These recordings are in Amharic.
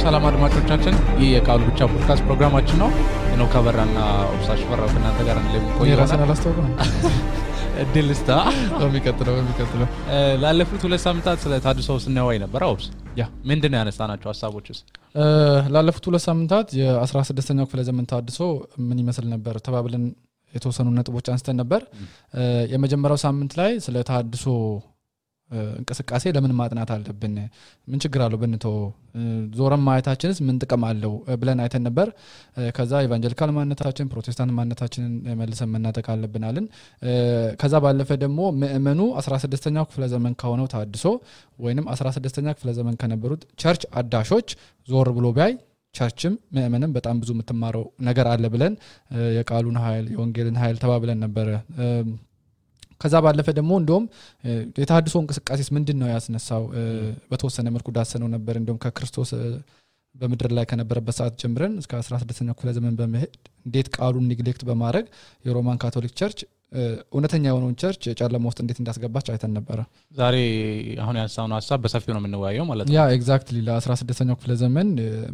ሰላም አድማጮቻችን ይህ የቃሉ ብቻ ፖድካስት ፕሮግራማችን ነው ነው ከበራና ኦብሳሽ ፈራው ከናንተ ጋር እንደምቆይ ራስን አላስተዋወቅም እድልስታ በሚቀጥለው ላለፉት 2 ሳምንታት ስለ ታድሶ ስናወይ ነበር ኦብስ ያ ምንድነው ያነሳናቸው ሐሳቦችስ ላለፉት 2 ሳምንታት የ16ኛው ክፍለ ዘመን ታድሶ ምን ይመስል ነበር ተባብለን የተወሰኑ ነጥቦች አንስተን ነበር የመጀመሪያው ሳምንት ላይ ስለ ታድሶ እንቅስቃሴ ለምን ማጥናት አለብን ምን ችግር አለው በእንተው ዞረም ማየታችንስ ምን ጥቅም አለው ብለን አይተን ነበር ከዛ ኢቫንጀሊካል ማንነታችን ፕሮቴስታንት ማንነታችንን መልሰን መናጠቅ አለብናልን ከዛ ባለፈ ደግሞ ምእመኑ 16ኛው ክፍለ ዘመን ካሆነው ታድሶ ወይንም 16ኛው ክፍለ ዘመን ከነበሩት ቸርች አዳሾች ዞር ብሎ ቢያይ ቸርችም ምእመንም በጣም ብዙ የምትማረው ነገር አለ ብለን የቃሉን ኃይል የወንጌልን ኃይል ተባብለን ነበር ከዛ ባለፈ ደግሞ እንደውም የታድሶ እንቅስቃሴስ ምንድነው ያስነሳው በተወሰነ መልኩ ዳሰነው ነበር እንደውም ከክርስቶስ በመድር ላይ ከነበረበት ሰዓት ጀምረን እስከ 16ኛው ክፍለ ዘመን በመሄድ እንዴት ቃሉን ኔግሌክት በማድረግ የሮማን ካቶሊክ ቸርች እውነተኛ የሆነውን ቸርች ጨለማ ውስጥ እንዴት እንዳስገባች አይተን ነበር ዛሬ አሁን ያንሳውን ሐሳብ በሰፊው ነው የምንወያየው ማለት ነው ያ ኤግዛክትሊ ለ16ኛው ክፍለ ዘመን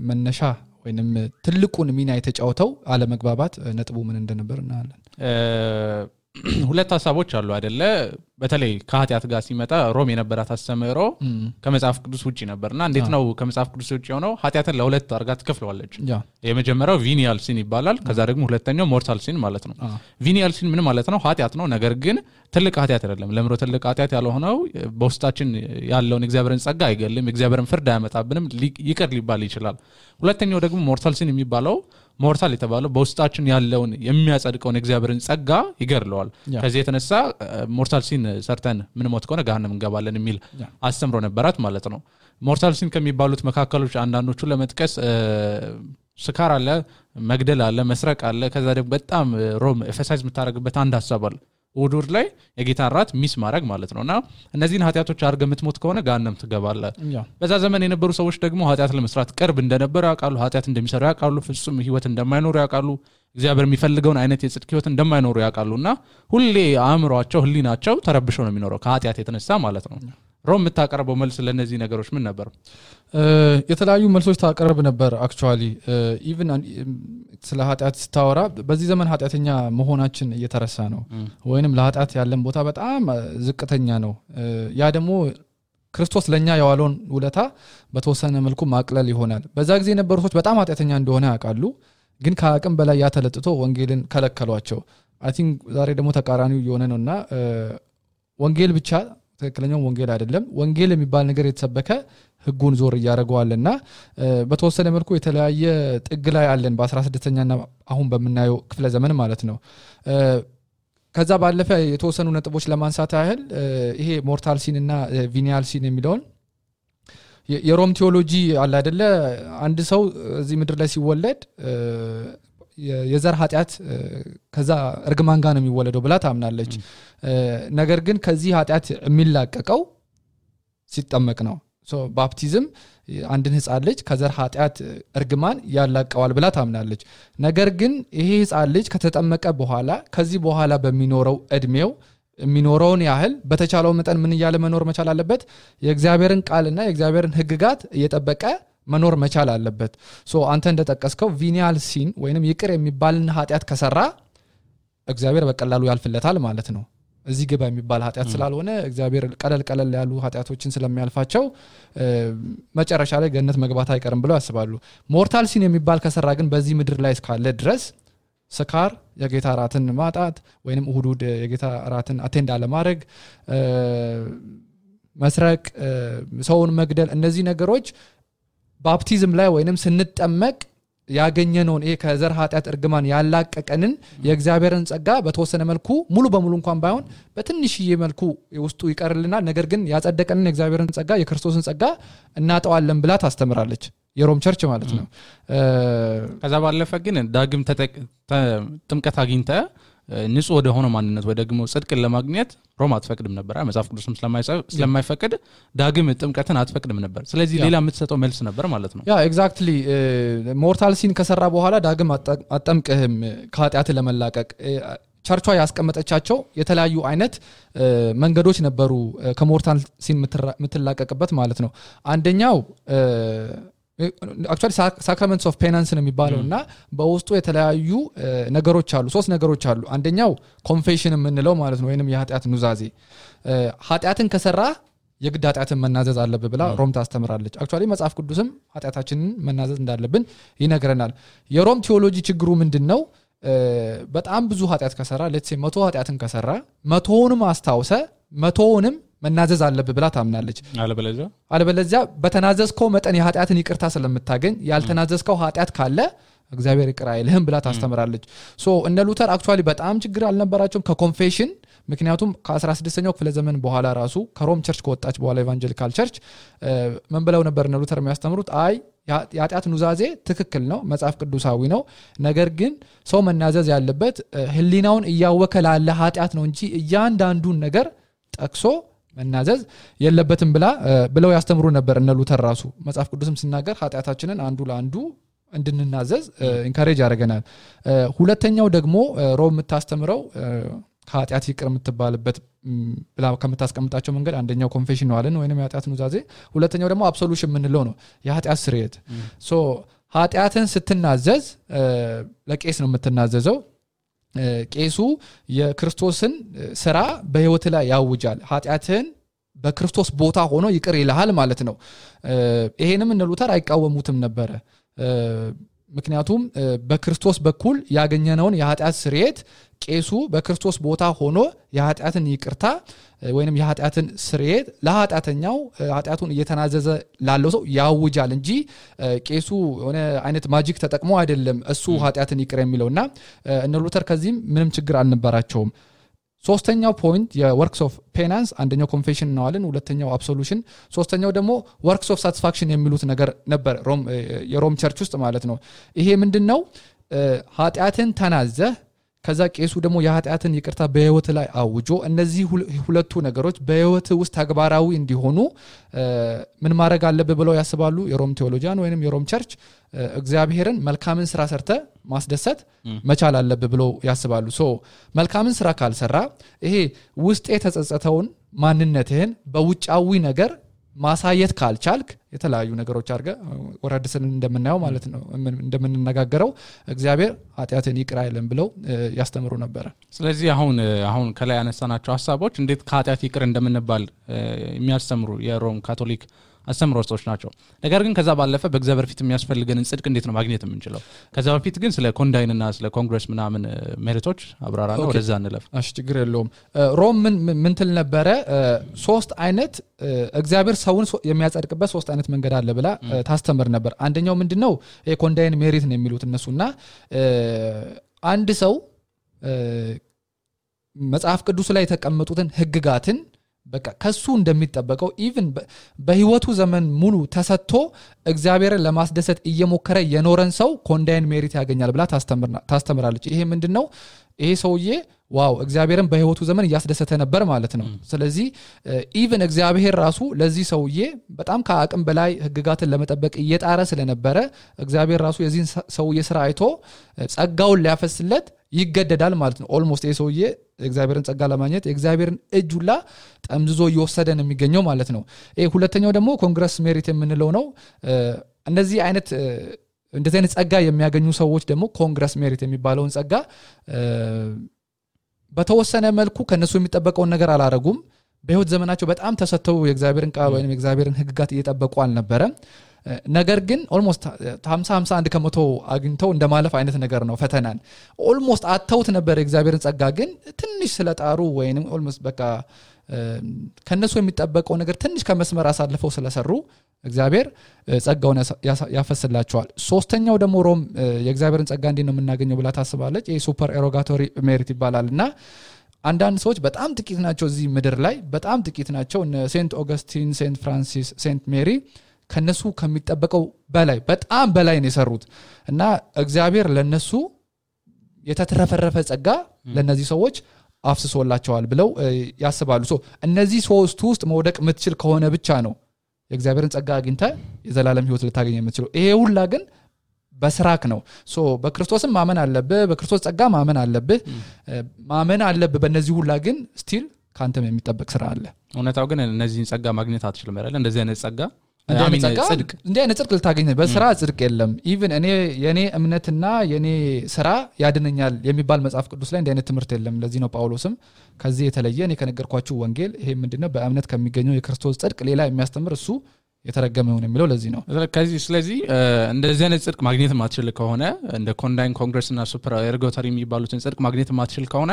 መነሻ ወይንም ትልቁን ሚና የተጫወተው አለ መግባባት ነጥቡ ምን እንደነበር እናያለን ሁለት ሐሳቦች አሉ አይደለ በተለይ ከኃጢያት ጋር ሲመጣ ሮም የነበራት አስተምህሮ ከመጽሐፍ ቅዱስ ውጪ ነበርና እንዴት ነው ከመጽሐፍ ቅዱስ ውጪ ሆነው ኃጢያትን ለሁለት አርጋ ትከፍለዋለች የመጀመሪያው ቪኒያል ሲን ይባላል ከዛ ደግሞ ሁለተኛው ሞርታል ሲን ማለት ነው ቪኒያል ሲን ምን ማለት ነው ኃጢያት ነው ነገር ግን ትልቅ ኃጢያት አይደለም ለምሮ ትልቅ ኃጢያት ያለው ሆነው በውስጣችን ያለውን እግዚአብሔርን ጸጋ አይገልም እግዚአብሔርን ፍርድ አያመጣብንም ይቅር ሊባል ይችላል ሁለተኛው ደግሞ ሞርታል ሲን የሚባለው ሞርታል የተባለው በውስጣችን ያለውን የሚያጸድቀውን እግዚአብሔርን ጸጋ ይገርለዋል ከዚህ የተነሳ ሞርታል ሲን ሰርተን ምን ሞት ከሆነ ገሃነም እንገባለን የሚል አስተምሮ ነበራት ማለት ነው ሞርታል ሲን ከሚባሉት መካከሎች አንዳንዶቹ ለመጥቀስ ስካር አለ መግደል አለ መስረቅ አለ ከዛ ደግሞ በጣም ሮም ኤፈሳይዝ የምታረግበት አንድ ሐሳብ አለ ወዶር ላይ የጌታን ራት ሚስ ማድረግ ማለት ነውና እነዚህን ኃጢያቶች አርገ ምትሞት ከሆነ ገሃነም ትገባለህ በዛ ዘመን የነበሩ ሰዎች ደግሞ ኃጢያት ለመስራት ቅርብ እንደነበረ ያውቃሉ ኃጢያት እንደሚሰሩ ያውቃሉ ፍጹም ህይወት እንደማይኖሩ ያውቃሉ እግዚአብሔር የሚፈልገውን አይነት የጽድቅ ህይወት እንደማይኖሩ ያውቃሉና ሁሌ አእምሮአቸው ህሊናቸው ተረብሾ ነው የሚኖረው ከኃጢያት የተነሳ ማለት ነው ሮም የምታቀርበው መልስ ለነዚህ ነገሮች ምን ነበር የተለያዩ መልሶች ታቀርብ ነበር አክቹአሊ ኢቭን ስለ ኃጢያት ስታወራ በዚህ ዘመን ኃጢያተኛ መሆናችን እየተረሳ ነው ወይንም ለኃጢያት ያለን ቦታ በጣም ዝቅተኛ ነው ያ ደግሞ ክርስቶስ ለኛ ያዋለውን ውለታ በተወሰነ መልኩ ማቅለል ይሆናል በዛ ጊዜ የነበሩ ሰዎች በጣም ኃጢያተኛ እንደሆነ ያውቃሉ ግን ከአቅም በላይ ያተለጥቶ ወንጌልን ከለከሏቸው አይ ቲንክ ዛሬ ደግሞ ተቃራኒው የሆነ ነውና ወንጌል ብቻ ትክክለኛው ወንጌል አይደለም ወንጌል የሚባል ነገር የተሰበከ ህጉን ዞር ያያረጋዋልና በተወሰነ መልኩ የተለያየ ጥግ ላይ አለን በ16ኛና አሁን በመናየው ክፍለ ዘመን ማለት ነው ከዛ ባለፈ የተወሰኑ ነጥቦች ለማንሳት ያህል ይሄ ሞርታል ሲን እና ቪኒያል ሲን የሚለውን የሮም ቴዎሎጂ አለ አይደለ አንድ ሰው እዚህ ምድር ላይ ሲወለድ የዘር ኃጢያት ከዛ እርግማን ጋር ነው የሚወለደው ብላ ታምናለች ነገር ግን ከዚህ ኃጢያት የሚላቀቀው ሲጠመቅ ነው ሶ ባፕቲዝም አንድን ህፃን ልጅ ከዘር ኃጢያት እርግማን ያላቀዋል ብላ ታምናለች ነገር ግን ይሄ ህፃን ልጅ ከተጠመቀ በኋላ ከዚህ በኋላ በሚኖረው እድሜው የሚኖረውን ያህል በተቻለው መጠን ምን ያለ መኖር መቻል አለበት የእግዚአብሔርን ቃልና የእግዚአብሔርን ህግጋት እየተጠበቀ መኖር መቻል አለበት ሶ አንተ እንደተጠቀስከው ቪኒያል ሲን ወይንም ይቅር የሚባልን ኃጢያት ከሰራ እግዚአብሔር በቀላሉ ያልፍለታል ማለት ነው እዚህ ግባ የሚባል ኃጢያት ስላልሆነ እግዚአብሔር ቀለል ያሉ ኃጢያቶችን ስለሚያልፋቸው መጨረሻ ላይ ገነት መግባት አይቀርም ብለው ያስባሉ ሞርታል ሲን የሚባል ከሰራ ግን በዚህ ምድር ላይ እስካለ ድረስ ስካር የጌታ ራትን ማጣት ወይንም እሁድ የጌታ ራትን አቴንድ አለማድረግ መስረቅ ሰውን መግደል እነዚህ ነገሮች ባፕቲዝም ላይ ወይንም ስንጠመቅ ያገኘነውን ይሄ ከዘር ኃጢያት እርግማን ያላቀቀንን የእግዚአብሔርን ጸጋ በተወሰነ መልኩ ሙሉ በሙሉ እንኳን ባይሆን በትንሽዬ መልኩ ውስጡ ይቀርልናል ነገር ግን ያጸደቀንን የእግዚአብሔርን ጸጋ የክርስቶስን ጸጋ እናጣዋለን ብላ ታስተምራለች የሮም ቸርች ማለት ነው ከዛ ባለፈ ግን ዳግም ጥምቀት አግኝተ ንጹህ ወደ ሆነ ማንነት ወይ ደግሞ ጽድቅን ለማግኘት ሮም አትፈቅድም ነበር መጽሐፍ ቅዱስም ስለማይፈቅድ ዳግም ጥምቀትን አትፈቅድም ነበር ስለዚህ ሌላ የምትሰጠው መልስ ነበር ማለት ነው ያ ኤግዛክትሊ ሞርታል ሲን ከሰራ በኋላ ዳግም አጠምቅህም ከኃጢያት ለመላቀቅ ቸርቿ ያስቀመጠቻቸው የተለያዩ አይነት መንገዶች ነበሩ ከሞርታል ሲን ምትላቀቅበት ማለት ነው አንደኛው actually sacraments of penance ነው የሚባለውና በውስጡ የተለያዩ ነገሮች አሉ 3 ነገሮች አሉ አንደኛው confession የምንለው ማለት ነው ወይንም የኃጢአት ኑዛዜ ኃጢአትን ከሰራ የግድ ኃጢአትን መናዘዝ አለበት ብላ ሮም ታስተምራለች actually መጽሐፍ ቅዱስም ኃጢአታችንን መናዘዝ እንዳለብን ይነግረናል የሮም ቴዎሎጂ ችግሩ ምንድነው በጣም ብዙ ኃጢአት ከሰራ let's say 100 ኃጢአትን ከሰራ 100ንም አስታውሰ 100ንም መናዘዝ አለበት ብላ ታምናለች አለበለዚያ በተናዘዝከው መጠን የኃጢአትን ይቅርታ ስለምታገኝ ያልተናዘዝከው ኃጢአት ካለ እግዚአብሔር ይቅር አይልህም ብላ ታስተምራለች ሶ እነ ሉተር actually በጣም ችግር አልነበራቸውም ከኮንፌሽን ምክንያቱም ከ16ኛው ክፍለ ዘመን በኋላ ራሱ ከሮም ቸርች ከወጣች በኋላ ኢቫንጀሊካል ቸርች ምን ብለው ነበር እነ ሉተር የሚያስተምሩት አይ የኃጢአት ኑዛዜ ትክክል ነው መጽሐፍ ቅዱሳዊ ነው ነገር ግን ሰው መናዘዝ ያለበት ህሊናውን እያወከ ላለ ኃጢአት ነው እንጂ እያንዳንዱን ነገር ጠቅሶ መናዘዝ የለበትም ብለው ያስተምሩ ነበር እነ ሉተር ራሱ መጽሐፍ ቅዱስም ሲናገር ኃጢአታችንን አንዱ ለአንዱ እንድንናዘዝ ኢንካሬጅ ያደርገናል ሁለተኛው ደግሞ ሮም የምታስተምረው ኃጢአት ይቅር የምትባልበት ብላ ከምታስቀምጣቸው መንገድ አንደኛው ኮንፌሽን ነው አለን ወይንም የኃጢአት ኑዛዜ ሁለተኛው ደግሞ አብሶሉሽን የምንለው ነው የኃጢአት ስርየት ሶ ኃጢአትን ስትናዘዝ ለቄስ ነው የምትናዘዘው ቄሱ የክርስቶስን ስራ በህይወት ላይ ያውጃል ኃጢአትን በክርስቶስ ቦታ ሆኖ ይቅር ይልሃል ማለት ነው ይሄንም እነ ሉተር አይቃወሙትም ነበር ምክንያቱም በክርስቶስ በኩል ያገኘነውን የኃጢአት ስርየት ቄሱ በክርስቶስ ቦታ ሆኖ የኃጢአትን ይቅርታ ወይንም የኃጢአትን ስርየት ለኃጢአተኛው ኃጢአቱን እየተናዘዘ ላለው ሰው ያውጃል እንጂ ቄሱ ሆነ አይነት ማጂክ ተጠቅሞ አይደለም እሱ ኃጢአትን ይቅር የሚለውና እነ ሉተር ከዚህም ምንም ችግር አልነበራቸውም ሶስተኛው ፖይንት የወርክስ ኦፍ ፔናንስ አንደኛው ኮንፌሽን ነው አለን ሁለተኛው አብሶሉሽን ሶስተኛው ደግሞ ወርክስ ኦፍ ሳቲስፋክሽን የሚሉት ነገር ነበር የሮም ቸርች ውስጥ ማለት ነው ይሄ ምንድነው ኃጢአትን ተናዘህ ከዛ ቄሱ ደግሞ የኃጢአትን ይቅርታ በህይወት ላይ አውጆ እነዚህ ሁለቱ ነገሮች በህይወት ውስጥ ተግባራዊ እንዲሆኑ ምን ማድረግ አለበት ብለው ያስባሉ የሮም ቴዎሎጂያን ወይንም የሮም ቸርች እግዚአብሔርን መልካምን ስራ ሰርተ ማስደሰት መቻል አለበት ብለው ያስባሉ ሶ መልካምን ስራ ካልሰራ ይሄ ውስጥ የተጸጸተውን ማንነትህን በውጫዊ ነገር ማሳየት ካልቻልክ የተለያዩ ነገሮች አርገ ወራድሰን እንደምናየው ማለት ነው እንደምንነጋገረው እግዚአብሔር ኃጢአትን ይቅር አይልም ብለው ያስተምሩ ነበር ስለዚህ አሁን ከላይ ያነሳናቸው ሐሳቦች እንዴት ከኃጢአት ይቅር እንደምንባል የሚያስተምሩ የሮም ካቶሊክ አስተምሮቶች ናቸው ነገር ግን ከዛ ባለፈ በእግዚአብሔር ፊት የሚያስፈልገንን ጽድቅ እንዴት ነው ማግኘት የምንችለው ከዛ በፊት ግን ስለ ኮንዳይንና ስለ ኮንግረስ ምናምን ሜሪቶች አብራራና ወደዛ እንለፍ እሺ ችግር የለውም ሮም ምን ትል ነበር 3 አይነት እግዚአብሔር ሰውን የሚያጸድቅበት 3 አይነት መንገድ አለ ብላ ታስተምር ነበር አንደኛው ምንድነው የኮንዳይን ሜሪት ነው የሚሉት እነሱና አንድ ሰው መጽሐፍ ቅዱስ ላይ የተቀመጡትን ህግጋትን በቃ ከሱ እንደሚጠበቀው ኢቭን በህይወቱ ዘመን ሙሉ ተሰጥቶ እግዚአብሔርን ለማስደሰት እየሞከረ የኖረን ሰው ኮንዳይን ሜሪት ያገኛል ብላ ታስተምራለች ይሄ ምንድነው ይሄ ሰውዬ ዋው እግዚአብሔርን በህይወቱ ዘመን ያስደሰተ ነበር ማለት ነው ስለዚህ ኢቭን እግዚአብሔር ራሱ ለዚህ ሰውዬ በጣም ከአቅም በላይ ህግጋትን ለመጠበቅ እየጣረ ስለነበረ እግዚአብሔር ራሱ የዚህን ሰውዬ ስራ አይቶ ጸጋውን ሊያፈስለት ይገደዳል ማለት ነው ኦልሞስት ይሄ ሰውዬ እግዚአብሔርን ጸጋ ለማግኘት እግዚአብሔርን እጁላ ጠምዝዞ ይወሰደን የሚገኘው ማለት ነው ሁለተኛው ደግሞ ኮንግረስ ሜሪት የምንለው ነው እነዚህ አይነት እንደዚህ አይነት ጸጋ የሚያገኙ ሰዎች ደግሞ ኮንግረስ ሜሪት የሚባለውን ጸጋ በተወሰነ መልኩ ከነሱ የሚጠበቀው ነገር አላረጉም በህይወት ዘመናቸው በጣም ተሰተው የእግዚአብሔርን ቃል ወይንም የእግዚአብሔርን ህግጋት እየጠበቁ አልነበረ ነገር ግን ኦልሞስት 50-51 ከመቶ አግኝተው እንደማለፍ አይነት ነገር ነው ፈተናን ኦልሞስት አተውት ነበር የእግዚአብሔርን ጸጋ ግን ትንሽ ስለጣሩ ወይንም ኦልሞስት በቃ ከነሱ የሚጠበቀው ነገር ትንሽ ከመስመር አሳልፈው ስለሰሩ እግዚአብሔር ጸጋውን ያፈስላቸዋል ሶስተኛው ደግሞ ሮም የእግዚአብሔርን ጸጋ እንዴት ነው የምናገኘው ብላ ታስባለች ይሄ ሱፐር ኤሮጋቶሪ ሜሪት ይባላልና አንዳንድ ሰዎች በጣም ጥቂት ናቸው እዚህ ምድር ላይ በጣም ጥቂት ናቸው ሴንት ኦገስቲን ሴንት ፍራንሲስ ሴንት ሜሪ ከነሱ ከሚጠበቀው በላይ በጣም በላይ ነው የሰሩት እና እግዚአብሔር ለነሱ የተተረፈረፈ ጸጋ ለነዚህ ሰዎች አፍስሶላቸዋል ብለው ያስባሉ ሶ እነዚህ ሶስት ውስጥ መውደቅ የምትችል ከሆነ ብቻ ነው የእግዚአብሔርን ጸጋ አግኝተ የዘላለም ህይወት ልታገኝ የምትችለው ይሄ ሁላ ግን በስራክ ነው ሶ በክርስቶስም ማመን አለብህ በክርስቶስ ጸጋ ማመን አለብህ በእነዚህ ሁላ ግን ስቲል ካንተም የሚጠበቅ ስራ አለ እውነታው ግን እነዚህን ጸጋ ማግኘት አትችልም አይደል እንደዚህ አይነት ጸጋ እንዴ አይነት ጽድቅ ልታገኝ በስራ ጽድቅ የለም ኢቭን እኔ የኔ እምነትና የኔ ስራ ያድነኛል የሚባል መጽሐፍ ቅዱስ ላይ እንዴ አይነት ትምህርት የለም ለዚህ ነው ጳውሎስም ከዚህ የተለየ እኔ ከነገርኳችሁ ወንጌል ይሄ ምንድነው በእምነት ከሚገኘው የክርስቶስ ጽድቅ ሌላ የሚያስተምር እሱ የተረገመ ነው የሚለው ለዚህ ነው ስለዚህ እንደዚህ አይነት ጽድቅ ማግኘት ማትችል ከሆነ እንደ ኮንዳይን ኮንግረስ እና ሱፐር ኤርጎተሪ የሚባሉትን ጽድቅ ማግኘት ማትችል ከሆነ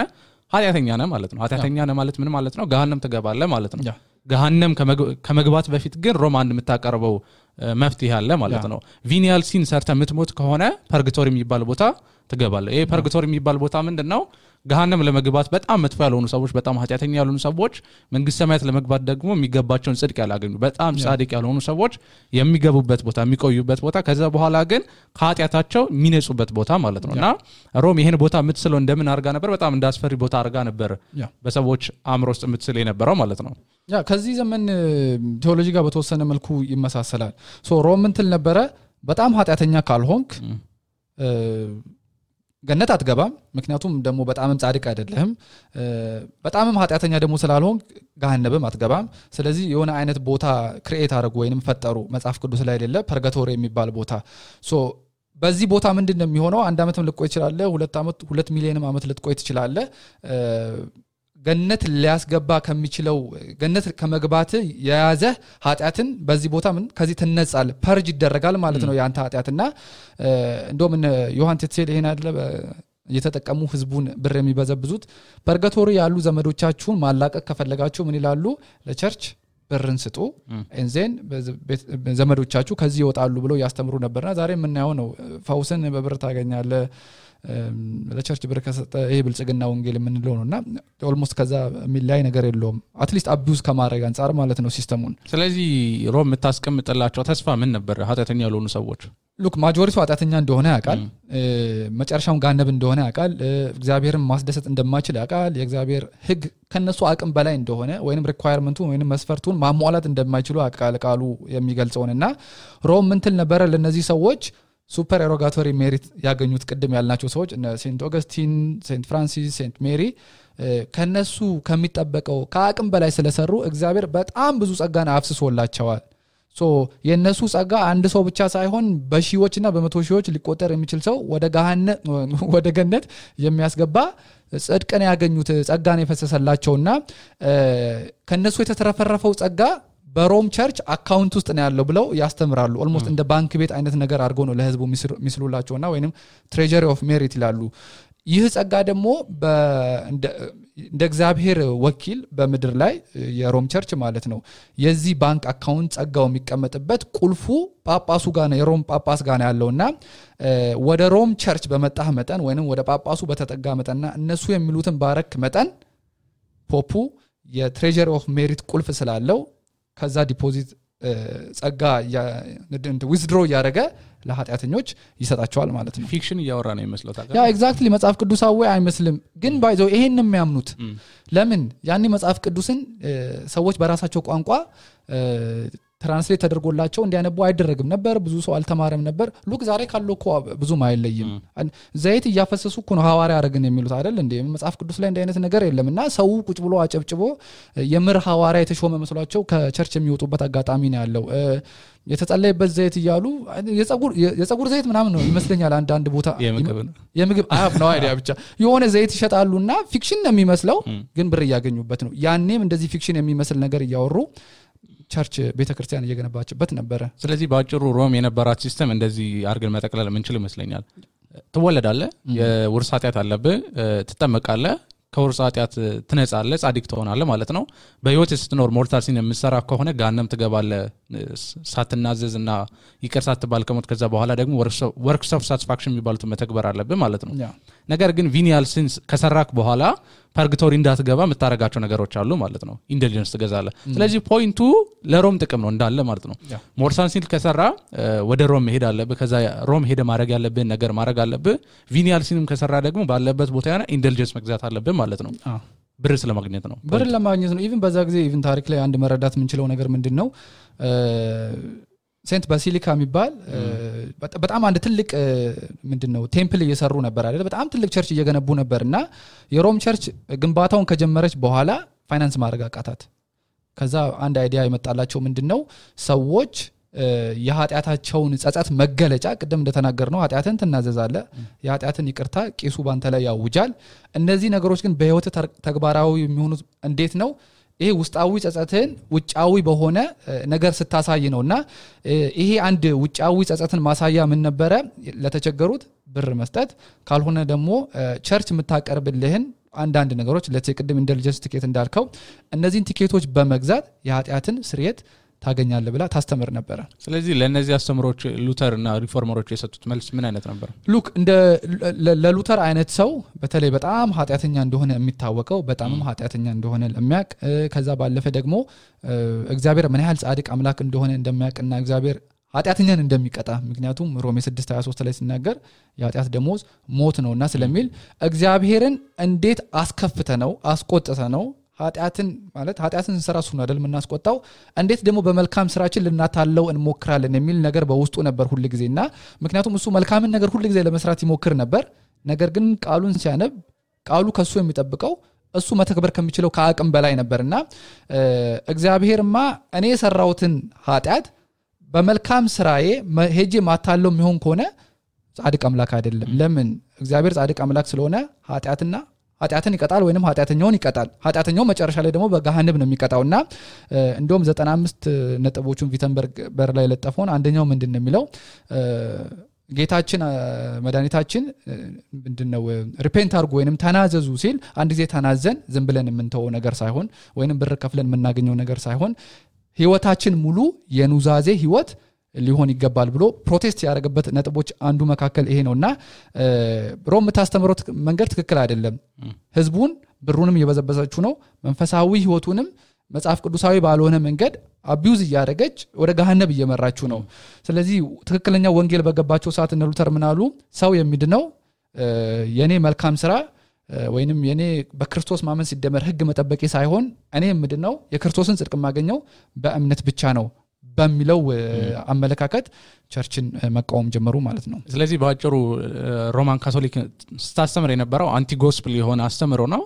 ኃጢአተኛ ነህ ማለት ነው ኃጢአተኛ ነህ ማለት ምን ማለት ነው ገሃነም ትገባለህ ማለት ነው ገሃነም ከመግባት በፊት ግን ሮም አንድ የምታቀርበው መፍትሄ አለ ማለት ነው ቪኒያል ሲን ሰርተ ምትሞት ከሆነ ፐርጋቶሪ የሚባል ቦታ ትገባለህ ይሄ ፐርጋቶሪ የሚባል ቦታ ምንድነው ገሃነም ለመግባት በጣም መጥፎ ያልሆኑ ሰዎች በጣም ኃጢአተኛ ያልሆኑ ሰዎች መንግስተ ሰማያት ለመግባት ደግሞ የሚገባቸውን ጽድቅ ያላገኙ በጣም ጻድቅ ያልሆኑ ሰዎች የሚገቡበት ቦታ የሚቆዩበት ቦታ ከዛ በኋላ ግን ከኃጢአታቸው የሚነጹበት ቦታ ማለት ነውና ሮም ይሄን ቦታ የምትስለው እንደምን አርጋ ነበር በጣም እንዳስፈሪ ቦታ አርጋ ነበር በሰዎች አእምሮ ውስጥ የምትስል የነበረው ማለት ነው ከዚህ ዘመን ቴዎሎጂ ጋር በተወሰነ መልኩ ይመሳሰላል ሮም እንትን ነበረ በጣም ኃጢአተኛ ካልሆንክ ገነት አትገባም ምክንያቱም ደግሞ በጣምም ጻድቅ አይደለህም በጣምም ኃጢአተኛ ደግሞ ስላልሆንክ ገሃነብም አትገባም ስለዚህ የሆነ አይነት ቦታ ክሬኤት አድርጉ ወይንም ፈጠሩ መጽሐፍ ቅዱስ ላይ አይደለ ፐርጋቶሪ የሚባል ቦታ በዚህ ቦታ ምንድነው የሚሆነው አንድ አመትም ልትቆይ ይችላል 2 አመት 2 ሚሊዮን አመት ልትቆይ ትችላል ገነት ሊያስገባ ከሚችለው ገነት ከመግባት የያዘ ኃጢአትን በዚህ ቦታ ምን ከዚህ ተነጻለ ፐርጅ ይደረጋል ማለት ነው ያንተ ኃጢአትና እንደውም ዮሐንስ ተሰለ ይሄን አይደለ የተጠቀሙ ህዝቡን ብር የሚበዘብዙት ፐርጋቶሪ ያሉ ዘመዶቻችሁን ማላቀቅ ከፈለጋችሁ ምን ይላሉ ለቸርች ብርን ስጡ እንዘን ዘመዶቻችሁ ከዚህ ይወጣሉ ብለው ያስተምሩ ነበርና ዛሬ የምናየው ነው ፈውስን በብር ታገኛለህ ለቸርች ብር ከሰጠ ይሄ ብልጽግና ወንጌል የምንለው ነውና ኦልሞስት ከዛ ሚላይ ነገር የለውም አትሊስት አቢዩዝ ከማድረግ አንፃር ማለት ነው ሲስተሙን ስለዚህ ሮም የምታስቀምጥላቸው ተስፋ ምን ነበር ኃጢአተኛ ያልሆኑ ሰዎች ሉክ ማጆሪቲው ኃጢአተኛ እንደሆነ ያውቃል መጨረሻውን ጋነብ እንደሆነ ያውቃል እግዚአብሔርን ማስደሰት እንደማይችል ያውቃል የእግዚአብሔር ህግ ከነሱ አቅም በላይ እንደሆነ ወይንም ሪኳየርመንቱን ወይንም መስፈርቱን ማሟላት እንደማይችሉ ቃሉ የሚገልጸውና ሮም ምንትል ነበር ለነዚህ ሰዎች ሱፐር ኤሮጋቶሪ ሜሪት ያገኙት ቅድም ያልናቸው ሰዎች ሴንት ኦገስቲን ሴንት ፍራንሲስ ሴንት ሜሪ ከነሱ ከሚጠበቀው ከአቅም በላይ ስለሰሩ እግዚአብሔር በጣም ብዙ ጸጋን አፍስሶላቸዋል የነሱ ጸጋ አንድ ሰው ብቻ ሳይሆን በሺዎችና በመቶ ሺዎች ሊቆጠር የሚችል ሰው ወደ ገነት የሚያስገባ ጽድቅን ያገኙት ጸጋን የፈሰሰላቸውና ከነሱ የተተረፈረፈው ጸጋ በሮም ቸርች አካውንት ውስጥ ነው ያለው ብለው ያስተምራሉ ኦልሞስት እንደ ባንክ ቤት አይነት ነገር አድርገው ነው ለህዝቡ ሚስሉላቸውና ወይንም ትሬጀሪ ኦፍ ሜሪት ይላሉ ይህ ጸጋ ደግሞ እንደ እግዚአብሔር ወኪል በመድር ላይ የሮም ቸርች ማለት ነው የዚህ ባንክ አካውንት ጸጋው የሚቀመጥበት ቁልፉ ጳጳሱ ጋር ነው የሮም ጳጳስ ጋር ነው ያለውና ወደ ሮም ቸርች በመጣህ መጠን ወይንም ወደ ጳጳሱ በተጠጋ መጠንና እነሱ የሚሉትን ባረክ መጠን ፖፑ የትሬጀሪ ኦፍ ሜሪት ቁልፍ ስላለው ከዛ ዲፖዚት ጸጋ ዊዝድሮ ያደረገ ለኃጢአተኞች ይሰጣቸዋል ማለት ነው ፊክሽን ያወራ ነው ይመስለው ያ ኤግዛክትሊ መጽሐፍ ቅዱሳዊ አይመስልም ግን ባይዘው ይሄን የሚያምኑት ለምን ያኔ መጽሐፍ ቅዱስን ሰዎች በራሳቸው ቋንቋ ትራንስሌት ተደርጎላቸው እንዲያነቡ አይደረግም ነበር ብዙ ሰው አልተማረም ነበር ሉክ ዛሬ ካለው እኮ ብዙ ማይለይም ዘይት እያፈሰሱ እኮ ነው ሐዋርያ ያረግን የሚሉት አይደል እንዴ መጽሐፍ ቅዱስ ላይ እንደ አይነት ነገር የለምና ሰው ቁጭ ብሎ አጨብጭቦ የምር ሐዋርያ የተሾመ መስሏቸው ከቸርች የሚወጡበት አጋጣሚ ነው ያለው የተጸለየበት ዘይት ይያሉ የጸጉር ዘይት ምናምን ነው ይመስለኛል አንድ ቦታ የምግብ አፍ ነው አይዲያ ብቻ የሆነ ዘይት ይሸጣሉና ፊክሽን ነው የሚመስለው ግን ብር ያገኙበት ነው ያኔም እንደዚህ ፊክሽን የሚመስል ነገር ያወሩ ቸርች ቤተክርስቲያን እየገነባችበት ነበር ስለዚህ ባጭሩ ሮም የነበራት ሲስተም እንደዚህ አርገን መጠቅለል ምንችል ይመስለኛል ትወለዳለህ የውርስ ኃጢአት አለብህ ትጠመቃለህ ከውርስ ኃጢአት ትነጻለህ ጻድቅ ትሆናለህ ማለት ነው በህይወት ስትኖር ሞርታል ሲን የምትሰራ ከሆነ ጋነም ትገባለህ ሳትናዘዝና ይቅር ሳትባል ከሞት ከዛ በኋላ ደግሞ ወርክስ ኦፍ ሳቲስፋክሽን የሚባሉት መተግበር አለብህ ማለት ነው ነገር ግን ቪኒያል ሲንስ ከሰራክ በኋላ ፐርጋቶሪ እንዳትገባ የምታረጋቸው ነገሮች አሉ ማለት ነው ኢንዲሊጀንስ ትገዛለህ ስለዚህ ፖይንቱ ለሮም ጥቅም ነው እንዳለ ማለት ነው ሞርታል ሲን ከሰራ ወደ ሮም መሄድ አለብህ ከዛ ሮም ሄደ ማድረግ ያለብህ ነገር ማድረግ አለብህ ቪኒያል ሲንም ከሰራ ደግሞ ባለበት ቦታ ያና ኢንዲሊጀንስ መግዛት አለብህ ማለት ነው ብር ስለማግኘት ነው ብር ለማግኘት ነው ኢቭን በዛ ጊዜ ኢቭን ታሪክ ላይ አንድ መረዳት የምንችለው ነገር ምንድነው ሴንት ባሲሊካ የሚባል በጣም አንድ ትልቅ ምንድነው ቴምፕል እየሰሩ ነበር አይደል በጣም ትልቅ ቸርች እየገነቡ ነበርና የሮም ቸርች ግንባታውን ከጀመረች በኋላ ፋይናንስ ማድረግ አቃታት ከዛ አንድ አይዲያ የመጣላቸው ምንድነው ሰዎች የኃጢአታቸውን ጸጸት መገለጫ ቅድም እንደተናገርነው ኃጢአትን ትናዘዛለህ የኃጢአትን ይቅርታ ቄሱ ባንተ ላይ ያውጃል እነዚህ ነገሮች ግን በህይወት ተግባራዊ የሚሆኑት እንዴት ነው ይሄ ውስጣዊ ጸጸትን ውጫዊ በሆነ ነገር ስታሳይ ነውና ይሄ አንድ ውጫዊ ጸጸትን ማሳያ ምን ነበረ ለተቸገሩት ብር መስጠት ካልሆነ ደግሞ ቸርች የምታቀርብልህን አንዳንድ ነገሮች ለተቀደም ኢንተለጀንስ ቲኬት እንዳልከው እነዚህን ቲኬቶች በመግዛት የኃጢአትን ስርየት ታገኛለህ ብላ ታስተምር ነበር ስለዚህ ለነዚህ አስተምሮች ሉተር እና ሪፎርመሮች የሰጡት መልስ ምን አይነት ነበር ሉክ እንደ ለሉተር አይነት ሰው በተለይ በጣም ኃጢአተኛ እንደሆነ የሚታወቀው በጣምም ኃጢአተኛ እንደሆነ ለሚያቅ ከዛ ባለፈ ደግሞ እግዚአብሔር ምን ያህል ጻድቅ አምላክ እንደሆነ እንደሚያቅና እግዚአብሔር ኃጢአተኛን እንደሚቀጣ ምክንያቱም ሮሜ 6:23 ላይ ሲናገር የኃጢአት ደሞዝ ሞት ነውና ስለሚል እግዚአብሔርን እንዴት አስከፍተነው አስቆጥተነው ኃጢአትን ማለት ኃጢአትን እንሰራሱ ነው አይደል ምናስቆጣው እንዴት ደግሞ በመልካም ስራችን ልናታለው እንሞክራለን የሚል ነገር በውስጡ ነበር ሁሉ ጊዜና ምክንያቱም እሱ መልካምን ነገር ሁሉ ጊዜ ለመስራት ይሞክር ነበር ነገር ግን ቃሉን ሲያነብ ቃሉ ከሱ የሚጠብቀው እሱ መተግበር ከሚችለው ከአቅም በላይ ነበርና እግዚአብሔርማ እኔ የሰራውትን ኃጢአት በመልካም ስራዬ ሄጄ ማታለው የሚሆን ከሆነ ጻድቅ አምላክ አይደለም ለምን እግዚአብሔር ጻድቅ አምላክ ስለሆነ ኃጢአትን ይቀጣል ወይንም ኃጢአተኛውን ይቀጣል ኃጢአተኛው መጨረሻ ላይ ደግሞ በገሃነም ነው የሚቀጣውና እንደውም 95 ነጥቦቹን ቪተንበርግ በር ላይ ለጠፈውን አንደኛው ምንድነው የሚለው ጌታችን መድኃኒታችን ምንድነው ሪፔንት አርጉ ወይንም ተናዘዙ ሲል አንድ ጊዜ ተናዘን ዝም ብለን የምንተው ነገር ሳይሆን ወይንም ብር ከፍለን የምናገኘው ነገር ሳይሆን ህይወታችን ሙሉ የኑዛዜ ህይወት ሊሆን ይገባል ብሎ ፕሮቴስት ያደረገበት ነጥቦች አንዱ መካከል ይሄ ነውና ሮም የምታስተምሩት መንገድ ትክክል አይደለም ህዝቡን ብሩንም እየበዘበዘችው ነው መንፈሳዊ ህይወቱንም መጽሐፍ ቅዱሳዊ ባልሆነ መንገድ አቢዩዝ ያደረገች ወደ ገሃነም እየመራችው ነው ስለዚህ ትክክለኛ ወንጌል በገባቸው ሰዓት እነ ሉተር ምናሉ ሰው የሚድነው የኔ መልካም ስራ ወይንም የኔ በክርስቶስ ማመን ሲደመር ህግ መጠበቂ ሳይሆን እኔ ምንድነው የክርስቶስን ጽድቅ ማገኘው በእምነት ብቻ ነው በሚለው አመለካከት ቸርችን መቃወም ጀመሩ ማለት ነው ስለዚህ ባጭሩ ሮማን ካቶሊክ ስታስተምር የነበረው አንቲ ጎስፕል የሆነ አስተምሮ ነው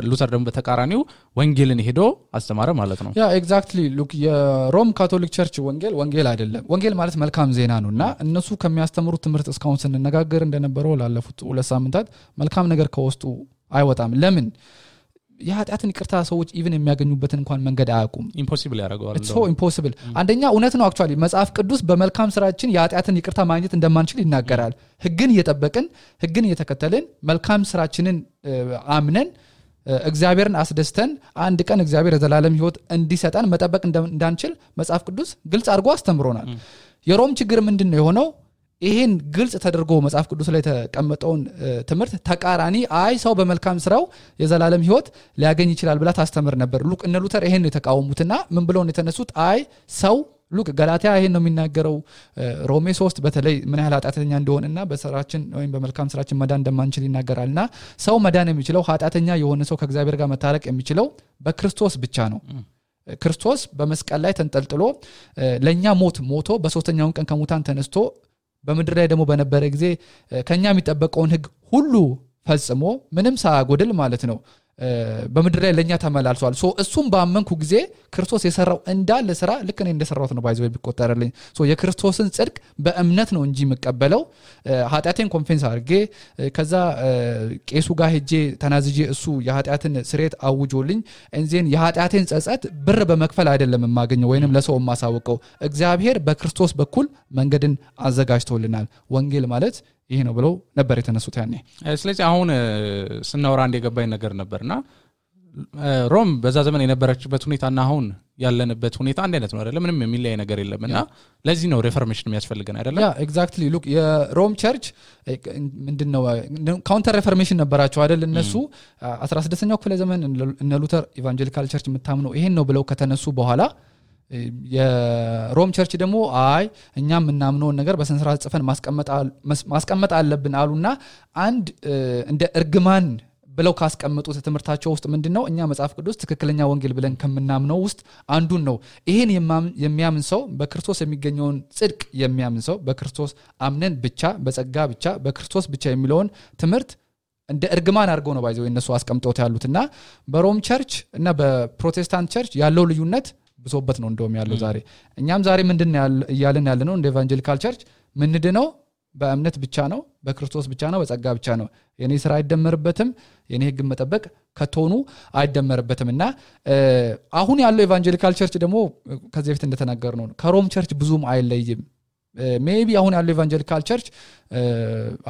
ሉተር ደግሞ በተቃራኒው ወንጌልን ሄዶ አስተማረ ማለት ነው ያ ኤግዛክትሊ ሉክ የሮም ካቶሊክ ቸርች ወንጌል አይደለም ወንጌል ማለት መልካም ዜና ነውና እነሱ ከሚያስተምሩት ትምህርት እስካሁን ስንነጋገር እንደነበረው ላለፉት 2 ሳምንታት መልካም ነገር ከውስጡ አይወጣም ለምን የኃጢአትን ይቅርታ ሰዎች ኢቭን የሚያገኙበትን እንኳን መንገድ አያውቁም ኢምፖሲብል ያደርጋል ሶ ኢምፖሲብል አንደኛ እውነት ነው አክቹአሊ መጽሐፍ ቅዱስ በመልካም ስራችን የኃጢአትን ይቅርታ ማግኘት እንደማንችል ይናገራል ህግን እየተጠበቅን ህግን እየተከተልን መልካም ስራችንን አምነን እግዚአብሔርን አስደስተን አንድ ቀን እግዚአብሔር የዘላለም ህይወት እንዲሰጣን መጠበቅ እንዳንችል መጽሐፍ ቅዱስ ግልጽ አድርጎ አስተምሮናል የሮም ችግር ምንድነው የሆነው ይሄን ግልጽ ተደርጎ መጽሐፍ ቅዱስ ላይ ተቀመጠውን ትምህርት ተቃራኒ ሰው በመልካም ስራው የዘላለም ህይወት ሊያገኝ ይችላል ብላ ታስተምር ነበር እነ ሉተር ይሄን የተቃወሙትና ምን ብለው የተነሱት ሰው ገላትያ ይሄን ነው የሚናገረው ሮሜ 3 በተለይ ምን ያህል ኃጢአተኛ እንደሆነና በስራችን ወይም በመልካም ስራችን መዳን እንደማንችል ይናገራልና ሰው መዳን የሚችለው ኃጢአተኛ የሆነ ሰው ከእግዚአብሔር ጋር መታረቅ የሚችለው በክርስቶስ ብቻ ነው ክርስቶስ በመስቀል ላይ ተንጠልጥሎ ለኛ ሞቶ በሶስተኛው ቀን ከሙታን ተነስቶ በመድር ላይ ደግሞ በነበረ ጊዜ ከኛ የሚጠበቀውን ህግ ሁሉ ፈጽሞ ምንም ሳያጎድል ማለት ነው በመድር ላይ ለኛ ተመላልሷል ሶ እሱም ባመንኩ ጊዜ ክርስቶስ የሰራው እንዳለ ስራ ልክ እኔ እንደሰራሁት ነው ባይዘው ቢቆጠርልኝ ሶ የክርስቶስን ጽድቅ በእምነት ነው እንጂ መቀበለው ኃጢአቴን ኮንፌንስ አድርጌ ከዛ ቄሱ ጋር ሄጄ ተናዝጄ እሱ የኃጢአትን ስሬት አውጆልኝ እንዜን የኃጢአቴን ጸጸት ብር በመክፈል አይደለም ማገኘው ወይንም ለሰው ማሳወቀው እግዚአብሔር በክርስቶስ በኩል መንገድን አዘጋጅቶልናል ወንጌል ማለት ይሄ ነው ብለው ነበር የተነሱት ያኔ ስለዚህ አሁን ስናወራ እንደገባኝ ነገር ነበርና ሮም በዛ ዘመን የነበረችበት ሁኔታና አሁን ያለንበት ሁኔታ አንድ አይነት ነው አይደል ምንም የሚለይ ነገር የለምና ለዚህ ነው ሪፎርሜሽን የሚያስፈልገን አይደል ያ ኤግዛክትሊ ሉክ የሮም ቸርች ምንድነው ካውንተር ሪፎርሜሽን ነበራቸው አይደል እነሱ 16ኛው ክፍለ ዘመን እነ ሉተር ኢቫንጀሊካል ቸርች የምታምነው ይሄን ነው ብለው ከተነሱ በኋላ የሮም ቸርች ደግሞ እኛም እናምነው ነገር በሰንስራት ጽፈን ማስቀመጥ አለብን አሉና አንድ እንደ እርግማን ብለው ካስቀመጡት ትምህርታቸው ውስጥ ምንድነው እኛ መጽሐፍ ቅዱስ ትክክለኛ ወንጌል ብለን ከምናምነው ውስጥ አንዱን ነው ይሄን የሚያምን ሰው በክርስቶስ የሚገኘውን ጽድቅ የሚያምን ሰው በክርስቶስ አምነን ብቻ በጸጋ ብቻ በክርስቶስ ብቻ የሚለውን ትምህርት እንደ እርግማን አድርገው ነው ባይዘው እነሱ አስቀምጠውት ያሉትና በሮም ቸርች እና በፕሮቴስታንት ቸርች ያለው ልዩነት ብሶበት ነው እንደውም ያለው ዛሬ እኛም ዛሬ ምንድነው እያልን ያለነው እንደ ኢቫንጀሊካል ቸርች ምንድነው በእምነት ብቻ ነው በክርስቶስ ብቻ ነው በጸጋ ብቻ ነው የኔ ስራ አይደመርበትም የኔ ህግ መጠበቅ ከተሆኑ አይደመርበትምና አሁን ያለው ኢቫንጀሊካል ቸርች ደግሞ ከዚህ በፊት እንደተናገርነው ከሮም ቸርች ብዙም አይለይም ሜቢ አሁን ያለው ኢቫንጀሊካል ቸርች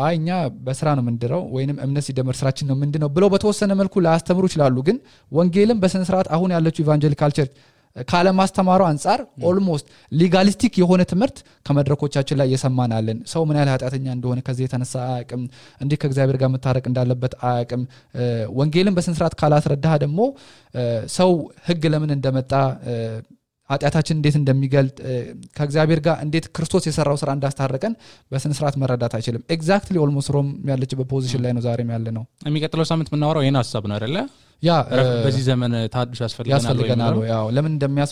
አይኛ በስራ ነው ምንድረው ወይንም እምነት ሲደመር ስራችን ነው ምንድነው ብለው በተወሰነ መልኩ ላስተምሩ ይችላሉ ግን ወንጌልን በስነ ስርዓት አሁን ያለችው ኢቫንጀሊካል ቸርች ካለ ማስተማሩ አንፃር ኦልሞስት ሊጋሊስቲክ የሆነ ትምህርት ከመድረኮቻችን ላይ እየሰማናለን ሰው ምን ያህል ኃጢአተኛ እንደሆነ ከዚህ የተነሳ አያቅም እንዴ ከእግዚአብሔር ጋር መታረቅ እንዳለበት አያቅም ወንጌልን በስነ ስርዓት ካላስረዳህ ደግሞ ሰው ህግ ለምን እንደመጣ ኃጢአታችን እንዴት እንደሚገልጥ ከእግዚአብሔር ጋር እንዴት ክርስቶስ የሰራው ስራ እንዳስታረቀን በስነ ስርዓት መረዳት አይችልም ኤግዛክትሊ ኦልሞስት ሮም ያለችበት ፖዚሽን ላይ ነው ዛሬም ያለ ነው የሚቀጥለው ሳምንት ምናወራው ይሄን ሐሳብ ነው አይደለ ያ በዚህ ዘመን ታድሶ ያስፈልገናል ያው ለምን እንደሚያስ